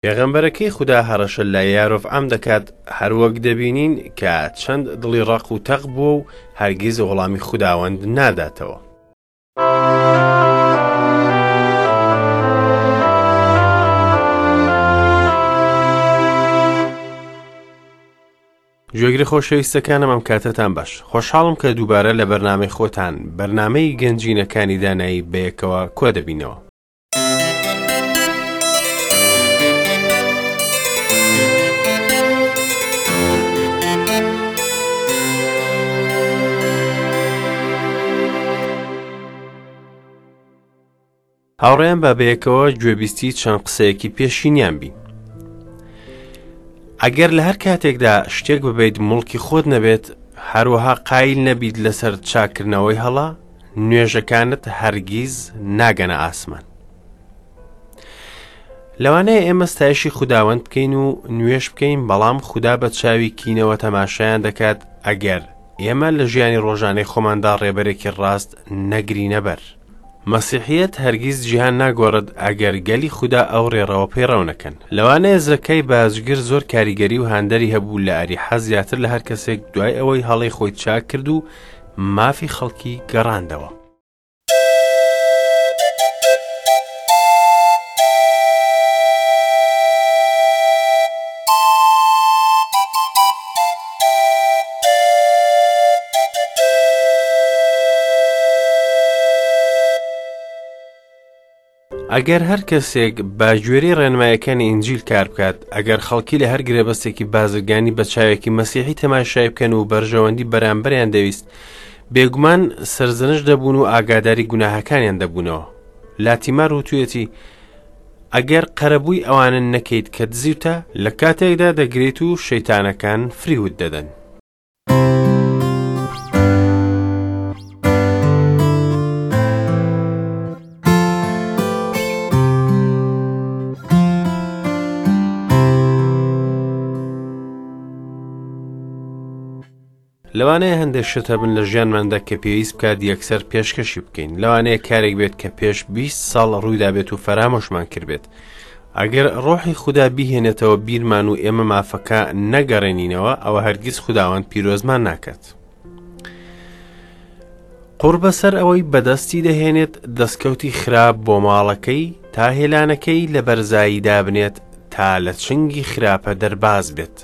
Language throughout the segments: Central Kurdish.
پێغەمبەرەکەی خودا هەڕەشە لە یارۆڤعام دەکات، هەروەک دەبینین کە چەند دڵی ڕەق و تەق بووە و هەرگیز وەڵامی خوداوەند ناداتەوە. گوێگرە خۆشەویستەکانم ئەم کاتەتان باش خۆشحاڵم کە دووبارە لە بەرنامەی خۆتان بەرنامەی گەنجینەکانی دانایی بەیەکەوە کۆ دەبینەوە. هاوڕێیان با بەیەکەوە گوێبیستی چەند قسەیەکی پێشینیان بین. ئەگەر لە هەر کاتێکدا شتێک ببیت موڵکی خۆت نەبێت، هەروەها قایل نەبیت لەسەر چاکردنەوەی هەڵە، نوێژەکانت هەرگیز ناگەنە ئاسمان. لەوانەیە ئێمە ستایشی خوداوەند بکەین و نوێژ بکەین، بەڵام خودا بە چاوی کینەوە تەماشایان دەکات ئەگەر ئێمە لە ژیانی ڕۆژانەی خۆماندا ڕێبەرێکی ڕاست نەگرینە بەر. مەسیحیەت هەرگیز جیهان ناگۆڕێت ئەگەر گەلی خودا ئەو ڕێڕەوە پەیڕەو نەکەن. لەوانەیە زەکای باجگر زۆر کاریگەری و هاندەری هەبوو لە ئەریحا زیاتر لە هەر کەسێک دوای ئەوەی هەڵەی خۆی چاک کرد و مافی خەڵکی گەڕاندەوە. ئەگەر هەر کەسێک بە گوێرەی ڕێنمایەکانی ئینجیل کار بکات، ئەگەر خەڵکی لە هەر گرێبەستێکی بازرگانی بە چاوێکی مەسیحی تەماشای بکەن و بەرژەوەندی بەرامبەریان دەویست، بێگومان سەرزەنشت دەبوون و ئاگاداری گوناهەکانیان دەبوونەوە. لاتیمار وتویەتی، ئەگەر قەرەبووی ئەوانە نەکەیت کە دزیوتە، لە کاتێکدا دەگریت و شەیتانەکان فریوت دەدەن. لەوانەیە هەندێک شت هەبن لە ژیانماندا کە پێویست بکات یەکسەر پێشکەشی بکەین لەوانەیە کارێک بێت کە پێش 20 ساڵ ڕوویدا بێت و فەرامۆشمان کردبێت ئەگەر ڕۆحی خودا بیهێنێتەوە بیرمان و ئێمە مافەکە نەگەڕێنینەوە ئەوە هەرگیز خوداوەند پیرۆزمان ناکات قوڕ بەسەر ئەوەی بەدەستی دەهێنێت دەستکەوتی خراپ بۆ ماڵەکەی تا هێلانەکەی لە بەرزایی دابنێت تا لە چنگی خراپە دەرباز بێت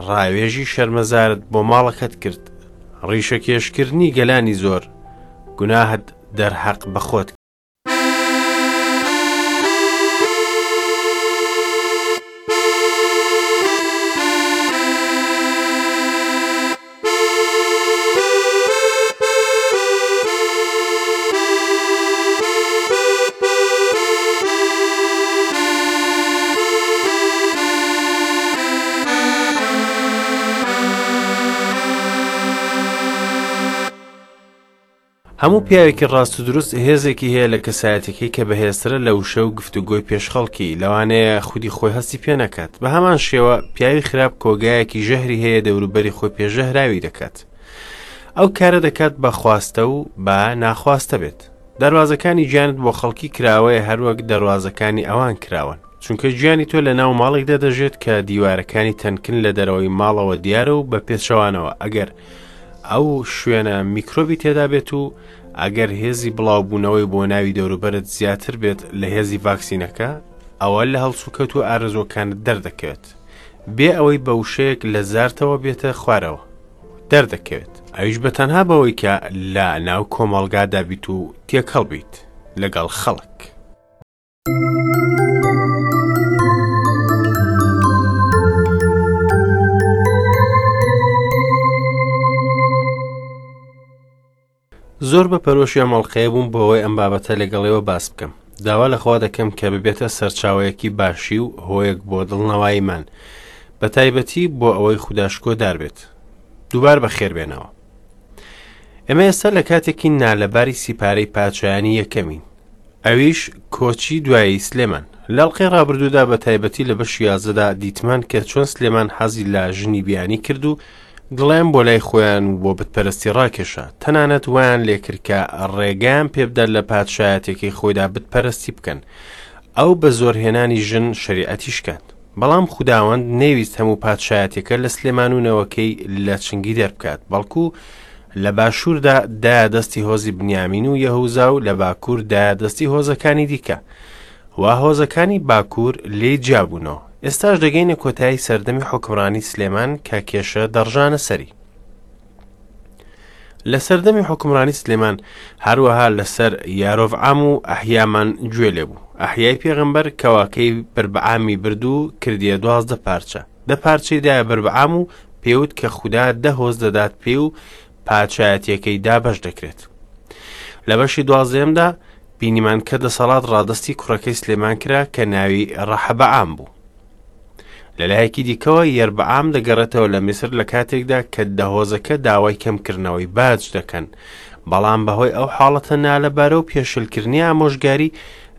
ڕاوێژی شەرمەزارت بۆ ماڵەکەت کرد، ڕیشەکێشکردنی گەلانی زۆر، گوناهت دەرهەق بە خۆت کرد. هەموو پیاوێکی ڕاست و دروست هێزێکی هەیە لە کەسایەتەکەی کە بەهێزترە لە وشە و گفتوگۆی پێش خەڵکی، لەوانەیە خودی خۆی هەستی پێ نەکات. بە هەمان شێوە پیاوی خراپ کۆگایەکی ژەهری هەیە دەوروبەری خۆی پێ ژەهراوی دەکات. ئەو کارە دەکات بە خواستە و بە ناخواستە بێت. دەروازەکانی گیانت بۆ خەڵکی کراوەیە هەروەک دەروازەکانی ئەوان کراوەن. چونکە گیانی تۆ لە ناو ماڵێکدا دەژێت کە دیوارەکانی تەنکن لە دەرەوەی ماڵەوە دیارە و بە پێچەوانەوە ئەگەر ئەو شوێنە میکرۆبی تێدا بێت و ئەگەر هێزی بڵاوبوونەوەی بۆ ناوی دەوروبەرت زیاتر بێت لە هێزی ڤاکسینەکە ئەوە لە هەڵسوکەوت و ئارەزووەکانت دەردەکەوێت بێ ئەوەی بە وشەیەک لە زارتەوە بێتە خوارەوە دەردەکەوێت ئەویش بە تەنها بەوەی کە لە ناو کۆمەڵگادا بیت و تێکەڵ بیت لەگەڵ خەڵک. زۆر بە پەرۆشی ئەم ئەڵقەیە بووم بۆ ئەوەی ئەم بابەتە لەگەڵ ئێوە باس بکەم. داوا لە خوا دەکەم کە ببێتە سەرچاوەیەکی باشی و هۆیەک بۆ دڵنەواییمان، بە تایبەتی بۆ ئەوەی خودا شکۆدار بێت. دووبار بەخێر بێنەوە. ئێمە ئێستا لە کاتێکی نالەباری سیپارەی پاچایانی یەکەمین. ئەویش کۆچی دوایی سلێمان. لە ئەڵقەی ڕابردوودا بە تایبەتی لە بەشی یازدەدا دیتمان کە چۆن سلێمان حەزی لە ژنی بیانی کرد و دڵیان بۆ لای خۆیان و بۆ بتپەرستی ڕاکێشا، تەنانەت وایان لێکرد کە ڕێگەیان پێبدات لە پادشایەتیەکەی خۆیدا بتپەرستی بکەن. ئەو بە زۆرهێنانی ژن شەریعەتی شکاند. بەڵام خوداوەند نەیویست هەموو پادشایەتیەکە لە سلێمان و نەوەکەی لە چنگی دەربکات، بەڵکو لە باشووردا دایە دەستی هۆزی بنیامین و یەهوزا و لە باکوور دایە دەستی هۆزەکانی دیکە و هۆزەکانی باکوور لێی جیابوونەوە. ئێستاش دەگەینە کۆتایی سەردەمی حوکمڕانی سلێمان کە کێشە دەڕژانە سەری. لە سەردەمی حوکمڕانی سلێمان هەروەها لەسەر یارۆڤعام و ئەحیامان گوێ لێ بوو. ئەحیای پێغەمبەر کەواکەی بربعامی برد و کردیە 12 پارچە. دە پارچەی دایە بربعام و پێوت کە خودا دە هۆز دەدات پێی و پادشایەتیەکەی دابەش دەکرێت. لە بەشی دوازدەیەمدا بینیمان کە دەسەڵات ڕادەستی کوڕەکەی سلێمان کرا کە ناوی ڕەحەبەعام بوو. لە لایەکی دیکەوە یەربعام دەگەڕێتەوە لە میسر لە کاتێکدا کە دە هۆزەکە داوای کەمکردنەوەی باج دەکەن، بەڵام بەهۆی ئەو حاڵەتە نالەبارە و پێشلکردنی ئامۆژگاری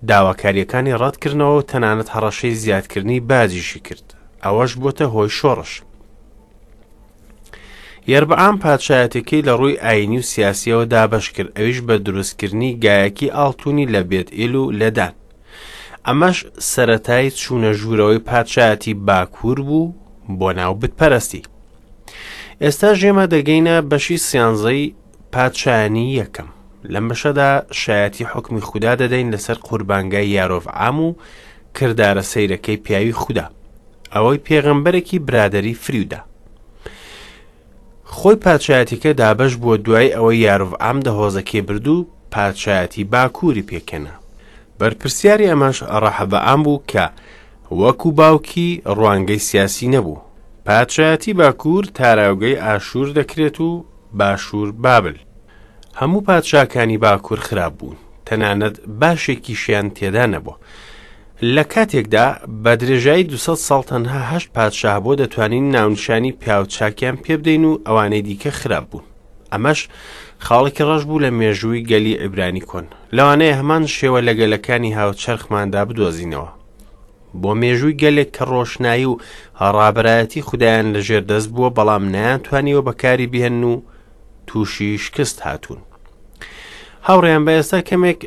داواکاریەکانی ڕەتکردنەوە و تەنانەت هەڕەشەی زیادکردنی باجیشی کرد، ئەوەش بۆتە هۆی شۆڕش. یەربعام پادشایەتەکەی لە ڕووی ئاینی و سیاسیەوە دابەش کرد، ئەویش بە دروستکردنی گایەکی ئاڵتونی لە بێت ئیل و لە دان. ئەمەش سەرەتای چوونە ژوورەوەی پادشایەتی باکوور بوو بۆ ناو بتپەرستی. ئێستا ئێمە دەگەینە بەشی سیانزەی پادشایانی یەکەم. لەم بەشەدا شایەتی حوکمی خودا دەدەین لەسەر قوربانگای یارۆڤعام و کردارە سەیرەکەی پیاوی خودا، ئەوەی پێغەمبەرێکی برادەری فریودا. خۆی پادشایەتیەکە دابەش بووە دوای ئەوەی یارۆڤعام دە هۆزەکەی برد و پادشایەتی باکووری پێکهێنا. بەرپرسیاری ئەمەش ڕەحەبەعام بوو کە وەکو باوکی ڕوانگەی سیاسی نەبوو. پادشایەتی باکوور تاراوگەی ئاشوور دەکرێت و باشوور بابل. هەموو پادشاکانی باکوور خراپ بوون، تەنانەت باشێکیشیان تێدا نەبووە. لە کاتێکدا بە درێژایی 200 ساڵ تەنها هەشت پادشا هەبووە دەتوانین ناونیشانی پیاو چاکیان پێبدەین و ئەوانەی دیکە خراپ بوون. ئەمەش خاڵێکی ڕەش بوو لە مێژووی گەلی عیبرانی کۆن. لەوانەیە هەمان شێوە لە گەلەکانی هاوچەرخماندا بدۆزینەوە. بۆ مێژووی گەلێک کە ڕۆشنایی و ڕابەرایەتی خودایان لەژێر دەست بووە بەڵام نەیانتوانیوە بەکاری بهێنن و تووشی شکست هاتوون. هاوڕێیان بە ئێستا کەمێک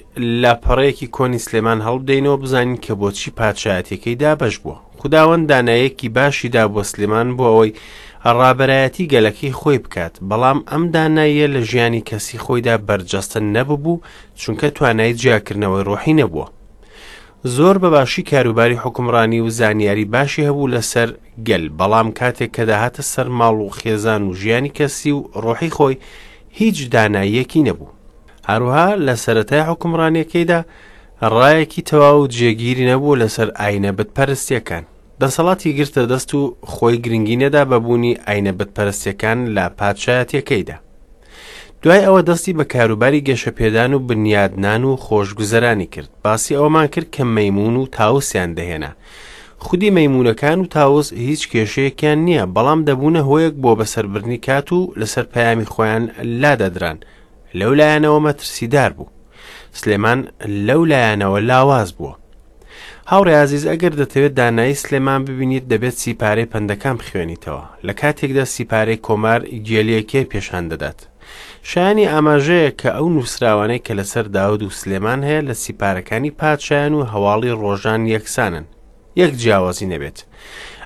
لاپەڕەیەکی کۆنی سلێمان هەڵبدەینەوە بزانین کە بۆچی پادشایەتیەکەی دابەش بووە. خوداوەند دانایەکی باشی دا بۆ سلێمان بۆ ئەوەی ڕابەرایەتی گەلەکەی خۆی بکات، بەڵام ئەم داناییە لە ژیانی کەسی خۆیدا بەرجەستە نەببوو چونکە توانای جیاکردنەوەی ڕۆحی نەبووە. زۆر بە باشی کاروباری حوکمڕانی و زانیاری باشی هەبوو لەسەر گەل، بەڵام کاتێک کە دەهاتە سەر ماڵ و خێزان و ژیانی کەسی و ڕۆحی خۆی هیچ داناییەکی نەبوو. هەروەها لە سەرەتای حوکمڕانیەکەیدا ڕایەکی تەواو و جێگیری نەبوو لەسەر ئاینە بتپەرستیەکان. دەسەڵاتی گرتە دەست و خۆی گرنگی نەدا بە بوونی ئاینە بتپەرستیەکان لە پادشایەتیەکەیدا. دوای ئەوە دەستی بە کاروباری گەشەپێدان و بنیادنان و خۆشگوزەرانی کرد. باسی ئەوەمان کرد کە مەیموون و تاوسیان دەهێنا. خودی مەیموونەکان و تاوس هیچ کێشەیەکیان نییە، بەڵام دەبوونە هۆیەک بۆ بەسەربردنی کات و لەسەر پەیامی خۆیان لادەدران. لەو لایەنەوە مەترسیدار بوو. سلێمان لەو لایەنەوە لاواز بووە. هاوڕێ ئازیز ئەگەر دەتەوێت دانایی سلێمان ببینیت دەبێت سیپارەی پەندەکان بخوێنیتەوە لە کاتێکدا سیپارەی کۆمار گێلیەکەی پێشان دەدات شایانی ئاماژەیە کە ئەو نووسراوانەی کە لەسەر داود و سلێمان هەیە لە سیپارەکانی پادشایان و هەواڵی ڕۆژان یەکسانن یەک جیاوازی نەبێت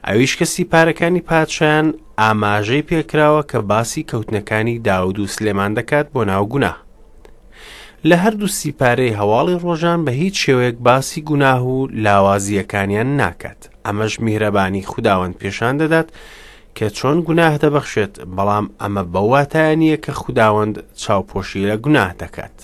ئەویش کە سیپارەکانی پادشایان ئاماژەی پێکراوە کە باسی کەوتنەکانی داود و سلێمان دەکات بۆ ناو گوناه لە هەردوو سیپارەی هەواڵی ڕۆژان بە هیچ شێوەیەک باسی گوناه و لاوازییەکانیان ناکات، ئەمەش میهرەبانی خوداوەند پێشان دەدات کە چۆن گوناه دەبەخشێت، بەڵام ئەمە بەو واتایە نییە کە خوداوەند چاوپۆشی لە گوناه دەکات.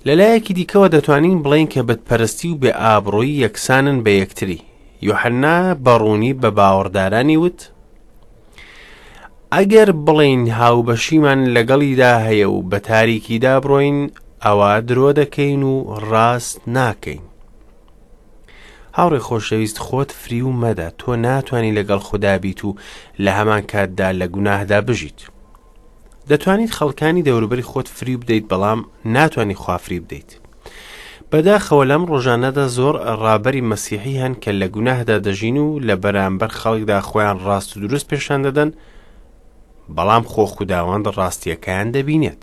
لەلایەکی دیکەوە دەتوانین بڵێین کە بتپەرستی و بێ ئابڕوویی یەکسانن بە یەکتری. یۆحەنا بە ڕوونی بە باوەڕدارانی وت، ئەگەر بڵێین هاوبەشیمان لەگەڵیدا هەیە و بە تاریکیدا بڕۆین ئەوا درۆ دەکەین و ڕاست ناکەین. هاوڕێ خۆشەویست خۆت فریو مەدە تۆ ناتوانی لەگەڵ خودا بیت و لە هەمان کاتدا لە گوناهدا بژیت. دەتوانیت خەڵکانی دەوروبەری خۆت فریو بدەیت بەڵام ناتوانی خوا فریو بدەیت. بەداخەوە لەم ڕۆژانەدا زۆر ڕابەری مەسیحی هەن کە لە گوناهدا دەژین و لە بەرامبەر خەڵکدا خۆیان ڕاست و دروست پێشان دەدەن بەڵام خۆ خوداوەند ڕاستیەکەیان دەبینێت.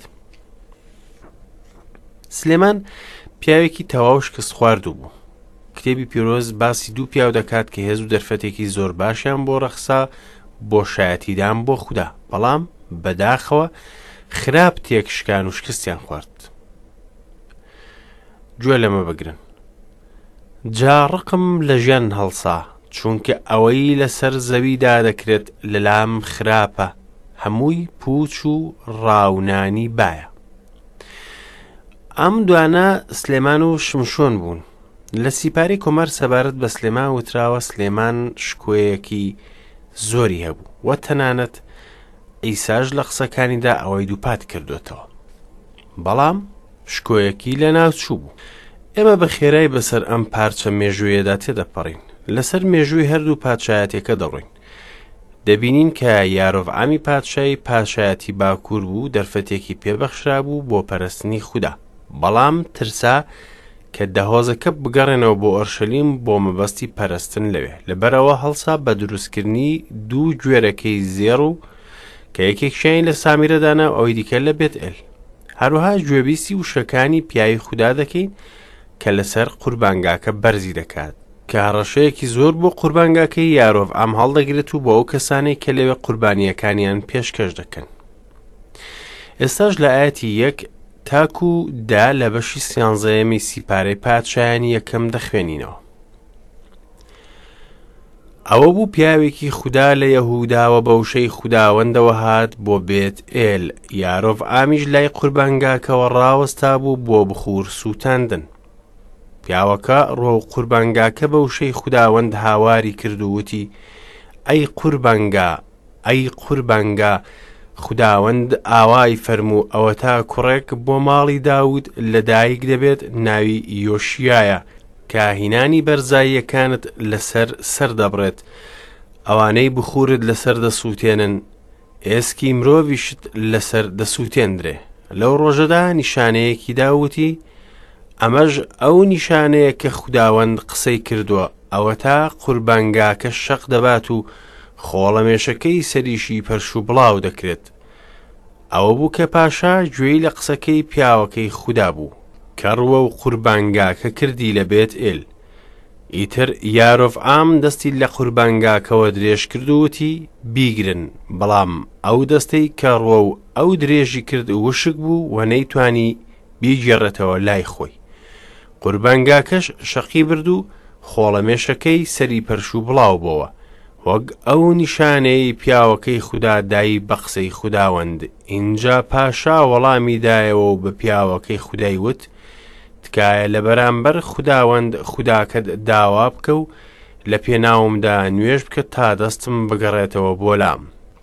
سلێمان پیاوێکی تەواو شکستخواردوو بوو. کتێبی پیرۆز باسی دوو پیاو دەکات کە هێز و دەرفەتێکی زۆر باشیان بۆ ڕەخسا بۆ شایەتیدان بۆ خودا، بەڵام بەداخەوە خراپ تێکشکان و شکستیان خوارد. گوێ لەمە بگرن. جا ڕقم لە ژیان هەڵسا، چونکە ئەوەی لەسەر زەویدا دەکرێت لەلام خراپە، هەمووی پووچ و ڕاونانی بایە. ئەم دوانە سلێمان و شمشۆن بوون. لە سیپارەی کۆمار سەبارەت بە سلێمان وتراوە سلێمان شکۆیەکی زۆری هەبوو و تەنانەت عیساش لە قسەکانیدا ئەوەی دووپات کردوێتەوە. بەڵام شکۆیەکی لەناوچوو بوو. ئێمە بە خێرای بەسەر ئەم پارچە مێژوویەدا تێدەپەڕین. لەسەر مێژووی هەردوو پادشایەتیەکە دەڕۆین. دەبینین کە یارۆڤعامی پادشای پادشایەتی باکوور بوو دەرفەتێکی پێبەخشرابوو بۆ پەرستنی خودا. بەڵام ترسا کە دەهۆزەکە بگەڕێنەوە بۆ ئۆرشەلیم بۆ مەبەستی پەرستن لەوێ. لەبەرئەوە هەڵسا بە دروستکردنی دوو گوێرەکەی زێڕ و کە یەکێکیانی لە سامیرە دانا و ئەوی دیکە لە بێتئێل. هەروەها گوێبیستی وشەکانی پیاوی خودا دەکەین کە لەسەر قوربانگاکە بەرزی دەکات، کە هەڕەشەیەکی زۆر بۆ قوربانگاکەی یارۆڤعام هەڵدەگرێت و بۆ ئەو کەسانەی کە لەوێ قوربانییەکانیان پێشکەش دەکەن. ئێستاش لە ئاەتی یەک تاکو دا لە بەشی سیانزەیەمی سیپارەی پادشایانی یەکەم دەخوێنینەوە. ئەوە بوو پیاوێکی خودا لە یەهوداوە بە وشەی خوداوەندەوە هات بۆ بێت ئێل، یارۆڤعامیش لای قوربانگاکەوە ڕاوەستا بوو بۆ بخوور سووتاندن. پیاوەکە ڕوەو قوربانگاکە بە وشەی خوداوەند هاواری کرد و وتی، ئەی قوربانگا، ئەی قوربانگا، خوداوەند ئاوای فەرموو ئەوەتا کوڕێک بۆ ماڵی داود لەدایک دەبێت ناوی یۆشیایە، کاهینانی بەرزاییەکانت لەسەر سەر دەبڕێت، ئەوانەی بخوورت لەسەر دەسووتێنن، ئێسکی مرۆڤیشت لەسەر دەسووتێندرێ. لەو ڕۆژەدا نیشانەیەکی دا وتی، ئەمەش ئەو نیشانەیە کە خوداوەند قسەی کردووە، ئەوەتا قوربانگاکە شەق دەبات و خۆڵەمێشەکەی سەریشی پەرشوبڵاو دەکرێت. ئەوە بوو کە پاشا گوێی لە قسەکەی پیاوەکەی خودا بوو، کە ڕووەو قوربانگاکە کردی لە بێتئێل. ئیتر یارۆڤعام دەستی لە قوربانگاکەوە درێژ کرد و وتی، بیگرن! بەڵام ئەو دەستەی کە ڕووەو ئەو درێژی کرد وشک بوو و نەیتوانی بیگێڕێتەوە لای خۆی. قوربانگاکەش شەقی برد و خۆڵەمێشەکەی سەری پەرشوبڵاو بۆوە، وەک ئەو نیشانەیەی پیاوەکەی خودا دای بە قسەی خوداوەند. ئینجا پاشا وەڵامی دایەوە و بە پیاوەکەی خودای وت، تکایە لە بەرامبەر خوداوەند خوداکەت داوا بکە و لە پێناومدا نوێژ بکە تا دەستم بگەڕێتەوە بۆ لام.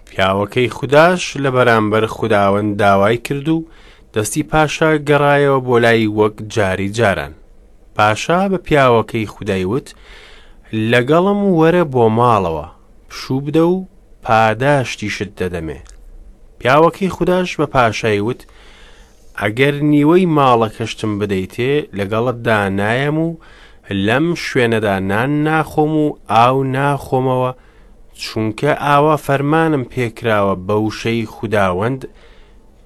پیاوەکەی خوداش لە بەرامبەر خوداوەند داوای کرد و دەستی پاشا گەڕایەوە بۆ لای وەک جاری جاران. پاشا بە پیاوەکەی خودای وت، لەگەڵم وەرە بۆ ماڵەوە، پشوو بدە و پاداشتیشت دەدەمێ. پیاوەکەی خوداش بە پاشای وت، ئەگەر نیوەی ماڵەکەشتم بدەیتێ، لەگەڵتدا نایەم و لەم شوێنەدا نان ناخۆم و ئاو ناخۆمەوە، چونکە ئاوا فەرمانم پێکراوە بە وشەی خوداوەند،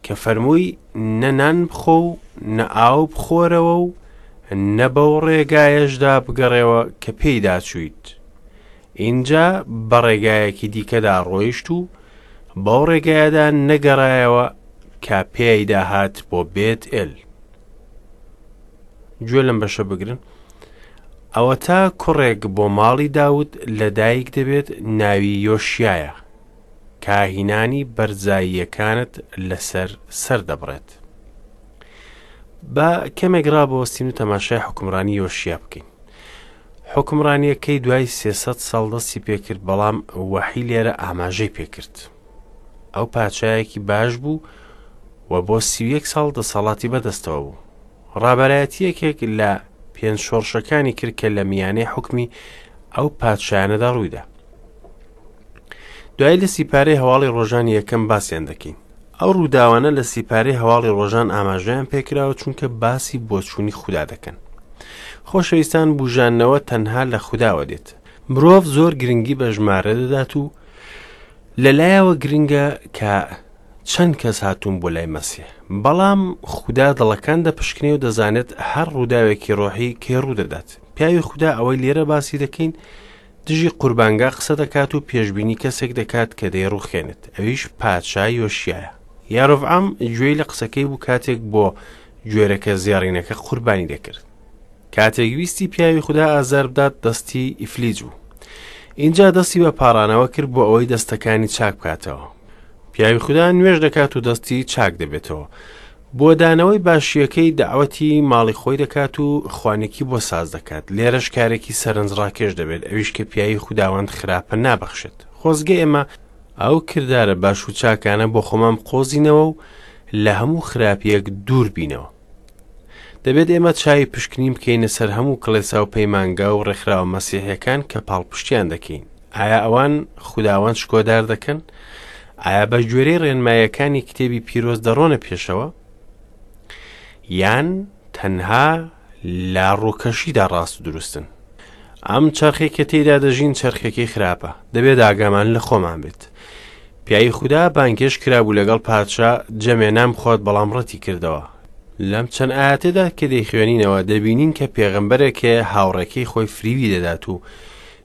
کە فەرمووی نە نان بخۆ و نە ئاو بخۆرەوە و نە بەو ڕێگایەشدا بگەڕێوە کە پێیدا چوویت. ئینجا بە ڕێگایەکی دیکەدا ڕۆیشت و بەو ڕێگایەدا نەگەڕایەوە کە پێیدا هات بۆ بێت ئێل. گوێ لەم بەشە بگرن. ئەوەتا کوڕێک بۆ ماڵی داود لەدایک دەبێت ناوی یۆشیایە. کاهینانی بەرزاییەکانت لەسەر سەر دەبڕێت. با کەمێک ڕابوەستین و تەماشای حوکمڕانی یۆشیا بکەین. حوکمڕانیەکەی دوای 300 ساڵ دەستی پێکرد بەڵام وەحی لێرە ئاماژەی پێکرد. ئەو پادشایەکی باش بوو و بۆ 31 ساڵ دەسەڵاتی بەدەستەوە بوو. ڕابەرایەتی یەکێک لە پێنج شۆڕشەکانی کرد کە لە میانەی حوکمی ئەو پادشایانەدا ڕوویدا. دوایی لە سیپارەی هەواڵی ڕۆژانی یەکەم باسیان دەکەین. ئەو ڕووداوانە لە سیپارەی هەواڵی ڕۆژان ئاماژەیان پێکراوە چونکە باسی بۆچوونی خودا دەکەن. خۆشەویستان بوژاندنەوە تەنها لە خوداوە دێت. مرۆڤ زۆر گرنگی بە ژمارە دەدات و لەلایەوە گرنگە کە چەند کەس هاتوون بۆ لای مەسیح. بەڵام خودا دڵەکان دەپشکنێ و دەزانێت هەر ڕووداوێکی ڕۆحی کەی ڕوودەدات. پیاوی خودا ئەوەی لێرە باسی دەکەین دژی قوربانگا قسە دەکات و پێشبینی کەسێک دەکات کە دەیڕوخێنێت، ئەویش پادشا یۆشیایە. یارۆڤعام گوێی لە قسەکەی بوو کاتێک بۆ گوێرەکە زێڕینەکە قوربانی دەکرد. کاتێک ویستی پیاوی خودا ئازار بدات دەستی ئیفلیج بوو. ئینجا دەستی بە پاڕانەوە کرد بۆ ئەوەی دەستەکانی چاک بکاتەوە. پیاوی خودا نوێژ دەکات و دەستی چاک دەبێتەوە. بۆ دانەوەی باشییەکەی دەعوەتی ماڵی خۆی دەکات و خوانێکی بۆ ساز دەکات. لێرەش کارێکی سەرنجڕاکێش دەبێت، ئەویش کە پیاوی خوداوەند خراپە نابەخشێت. خۆزگە ئێمە ئەو کردارە باش و چاکانە بۆ خۆمان بقۆزینەوە و لە هەموو خراپییەک دوور بینەوە. دەبێت ئێمە چاوی پشکنین بکەینە سەر هەموو کڵێسا و پەیمانگا و ڕێکخراوە مەسیحیەکان کە پاڵپشتیان دەکەین. ئایا ئەوان خوداوەند شکۆدار دەکەن؟ ئایا بە گوێرەی ڕێنمایەکانی کتێبی پیرۆز دەڕۆنە پێشەوە؟ یان تەنها لە ڕووکەشیدا ڕاست و دروستن؟ ئەم چەرخێک کە تێیدا دەژین چەرخێکی خراپە، دەبێت ئاگامان لە خۆمان بێت. پیاوی خودا بانگهێشت کرابوو لەگەڵ پادشا جەمێ نان بخوات بەڵام ڕەتی کردەوە. لەم چەند ئایەتەدا کە دەیخوێنینەوە دەبینین کە پێغەمبەرێک هەیە هاوڕێکەی خۆی فریوی دەدات و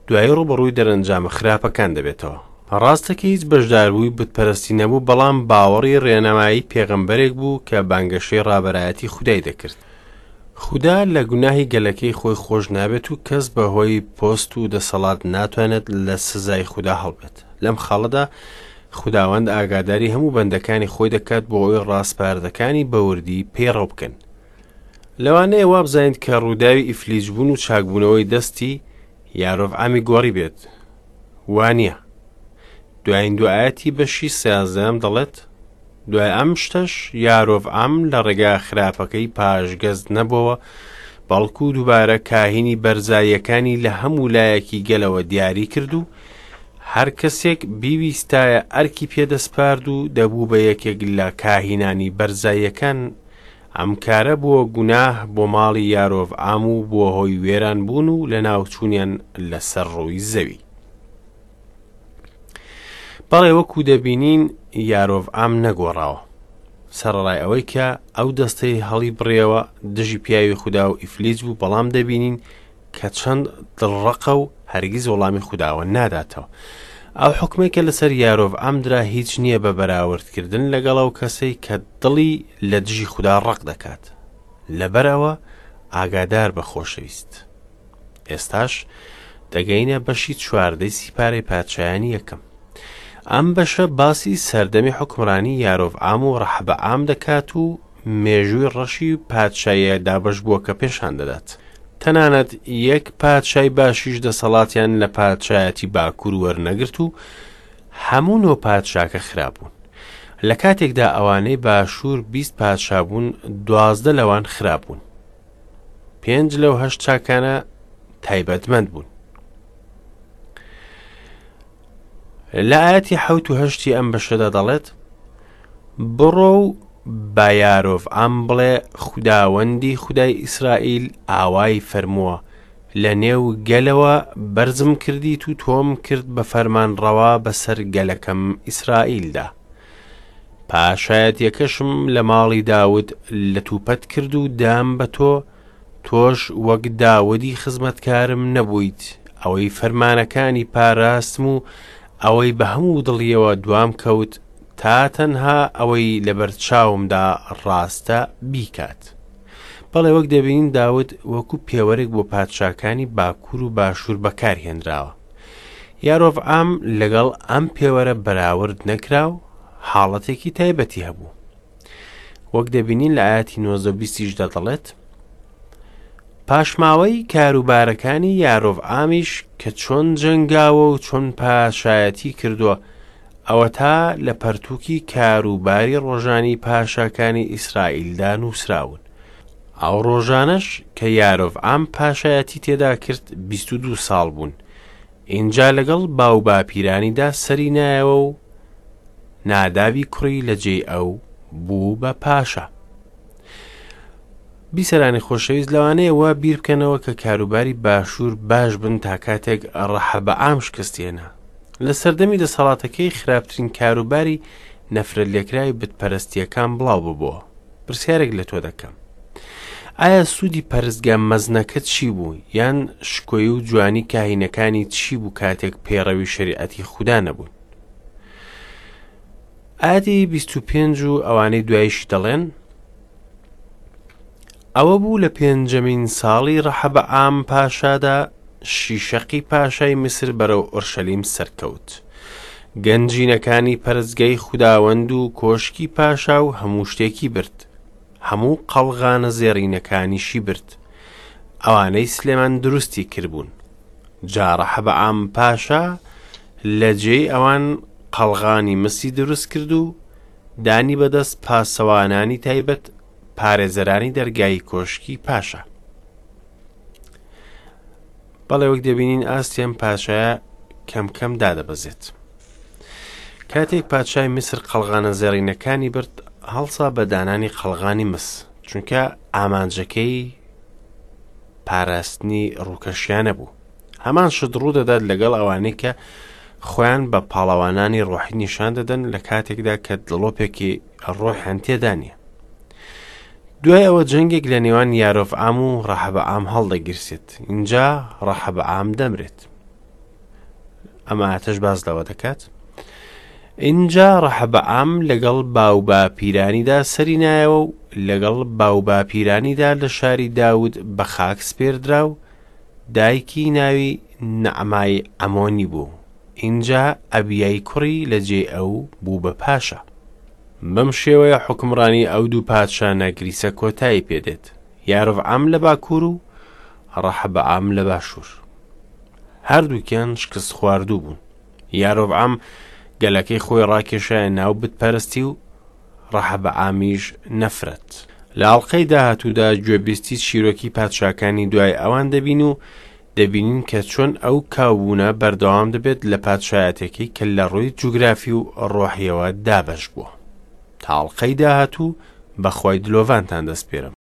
دوایی ڕووبەڕووی دەرەنجامە خراپەکان دەبێتەوە. ڕاستە کە هیچ بەشداربووی بتپەرستی نەبوو بەڵام باوەڕی ڕێنمایی پێغەمبەرێک بوو کە بانگەشەی ڕابەرایەتی خودای دەکرد. خودا لە گوناهی گەلەکەی خۆی خۆش نابێت و کەس بە هۆی پۆست و دەسەڵات ناتوانێت لە سزای خودا هەڵبێت. لەم خاڵەدا خوداوەند ئاگاداری هەموو بەندەکانی خۆی دەکات بۆ ئەوەی ڕاسپاردەکانی بە وردی پەیڕەو بکەن. لەوانەیە وابزانیت کە ڕووداوی ئیفلیجبوون و چاکبوونەوەی دەستی یارۆڤعامی گۆڕی بێت. وا نییە. دوایین دوو ئایەتی بەشی سیازدەیەم دەڵێت، دوای ئەم شتەش یارۆڤعام لە ڕێگا خراپەکەی پاشگەز نەبۆوە، بەڵکو دووبارە کاهینی بەرزاییەکانی لە هەموو لایەکی گەلەوە دیاری کرد و هەر کەسێک بیویستایە ئەرکی پێدەسپارد و دەبوو بە یەکێک لە کاهینانی بەرزاییەکان، ئەم کارە بووە گوناه بۆ ماڵی یارۆڤعام و بووە هۆی وێرانبوون و لەناوچوونیان لەسەر ڕووی زەوی. بەڵێ وەکو دەبینین یارۆڤعام نەگۆڕاوە. سەرەڕای ئەوەی کە ئەو دەستەی هەڵی بڕیەوە دژی پیاوی خودا و ئیفلیج بوو بەڵام دەبینین کە چەند دڵڕەقە و هەرگیز وەڵامی خوداوە ناداتەوە. ئەو حکمێک کە لەسەر یارۆڤعام درا هیچ نییە بە بەراوردکردن لەگەڵ ئەو کەسەی کە دڵی لە دژی خودا ڕەق دەکات. لەبەر ئەوە ئاگادار بە خۆشەویست. ئێستاش دەگەینە بەشی چواردەی سیپارەی پادشایانی یەکەم. ئەم بەشە باسی سەردەمی حوکمڕانی یارۆڤعام و ڕەحەبەعام دەکات و مێژووی ڕەشی پادشاییە دابەشبووەکە پێشان دەدات. تەنانەت یەک پادشای باشیش دەسەڵاتیان لە پادشایەتی باکوور وەرنەگرت و هەموو نۆ پادشاکە خراپ بوون. لە کاتێکدا ئەوانەی باشوور 20 پادشا بوون، 12 لەوان خراپ بوون. پێنج لەو هەشت چاکانە تایبەتمەند بوون. لە ئاەتی حەوت و هەشتی ئەم بەشەدا دەڵێت بڕۆ و بە یارۆڤعام بڵێ خوداوەندی خودای ئیسرائیل ئاوای فەرمووە لە نێو گەلەوە بەرزم کردیت و تۆم کرد بە فەرمانڕەوا بەسەر گەلەکەم ئیسرائیلدا پاشایەتیەکەشم لە ماڵی داود لەتوپەت کرد و دام بە تۆ، تۆش وەک داودی خزمەتکارم نەبوویت، ئەوەی فەرمانەکانی پاراستم و ئەوەی بە هەموو دڵیەوە دوام کەوت، تا تەنها ئەوەی لەبەر چاومدا ڕاستە بیکات. بەڵێ وەک دەبینین داود وەکو پێوەرێک بۆ پادشاکانی باکوور و باشوور بەکارهێنراوە. یارۆڤعام لەگەڵ ئەم پێوەرە بەراورد نەکرا و حاڵەتێکی تایبەتی هەبوو. وەک دەبینین لە ئاەتی 19 بیستیشدا دەڵێت پاشماوەی کاروبارەکانی یارۆڤعامیش کە چۆن جەنگاوە و چۆن پاشایەتی کردووە ئەوەتا لە پەرتووکی کاروباری ڕۆژانی پاشاکانی ئیسرائیلدا نووسراون. ئەو ڕۆژانەش کە یارۆڤعام پاشایەتی تێدا کرد 22 ساڵ بوون. ئینجا لەگەڵ باوباپیرانیدا سەری نایەوە و نادابی کوڕی لە جێی ئەو بوو بە پاشا. بیسەرانی خۆشەویست لەوانەیە وا بیر بکەنەوە کە کاروباری باشوور باش بن تا کاتێک ڕەحەبەعام شکستێنا. لە سەردەمی دەسەڵاتەکەی خراپترین کاروباری نەفرەتلێکراوی بتپەرستییەکان بڵاو ببۆوە. پرسیارێک لە تۆ دەکەم. ئایا سوودی پەرستگا مەزنەکە چی بوو، یان شکۆی و جوانی کاهینەکانی چی بوو کاتێک پەیڕەوی شەریعەتی خودا نەبوون؟ ئایەتی 25 و ئەوانەی دواییشی دەڵێن، ئەوە بوو لە پێنجەمین ساڵی ڕەحەبەعام پاشادا شیشەقی پاشای میسر بەرەو ئۆرشەلیم سەرکەوت. گەنجینەکانی پەرستگای خوداوەند و کۆشکی پاشا و هەموو شتێکی برد. هەموو قەڵغانە زێڕینەکانیشی برد، ئەوانەی سلێمان دروستی کردبوون. جا ڕەحەبەعام پاشا لە جێی ئەوان قەڵغانی مسی دروست کرد و دانی بەدەست پاسەوانانی تایبەت پارێزەرانی دەرگای کۆشکی پاشا. بەڵێ وەک دەبینین ئاستی ئەم پاشایە کەم کەم دادەبەزێت. کاتێک پادشای میسر قەڵغانە زێڕینەکانی برد هەڵسا بە دانانی قەڵغانی مس چونکە ئامانجەکەی پاراستنی ڕووکەشیانە بوو هەمان شت ڕوودەدات لەگەڵ ئەوانەی کە خۆیان بە پاڵەوانانی ڕۆحی نیشان دەدەن لە کاتێکدا کە دڵۆپێکی ڕۆحیان تێدا نییە دوای ئەوە جەنگێک لە نێوان یارۆڤعام و ڕەحەبەعام هەڵدەگیرسێت اینجا ڕەحەبەعام دەمرێت ئەم ئاتەش باس لەوە دەکات اینجا ڕەحەبەعام لەگەڵ باوباپیرانیدا سەری نایەوە و لەگەڵ باوباپیرانیدا لە شاری داود بە خاک سپێردرا و دایکی ناوی نەعمای عەمۆنی بوو ئینجا ئەبیای کوڕی لە جێی ئەو بوو بە پاشا. بەم شێوەیە حوکمڕانی ئەو دوو پادشا نەگریسە کۆتایی پێ دێت، یارۆڤعام لە باکوور و ڕەحەبەعام لە باشوور. هەردووکیان شکستخواردوو بوون. یارۆڤعام گەلەکەی خۆی ڕاکێشایە ناو بتپەرستی و ڕەحەبەعامیش نەفرەت. لە ئەڵقەی داهاتوودا گوێبیستی چیرۆکی پادشاکانی دوای ئەوان دەبین و دەبینین کە چۆن ئەو کاوبوونە بەردەوام دەبێت لە پادشایەتێکی کە لە ڕووی جوگرافی و ڕۆحیەوە دابەش بووە. تا ئەڵقەی داهاتوو بە خوای دلۆڤانتان دەسپێرم.